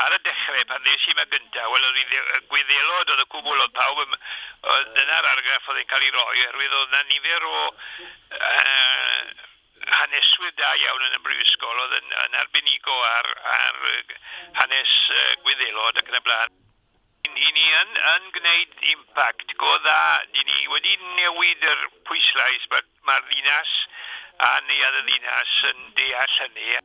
Ar y dechrau, pan ddes i yma gyntaf, wel, oedd Gwyddelod oedd y cwbl, oedd pawb, oedd dyna'r argraff oedd yn cael ei roi, oherwydd oedd yna nifer o haneswyr da iawn yn y brifysgol oedd yn arbenigo ar hanes Gwyddelod ac yn y blaen. I ni yn gwneud impact go dda. Di ni wedi newid yr pwyslais, mae'r ddinas a neuadd y ddinas yn deall hynny.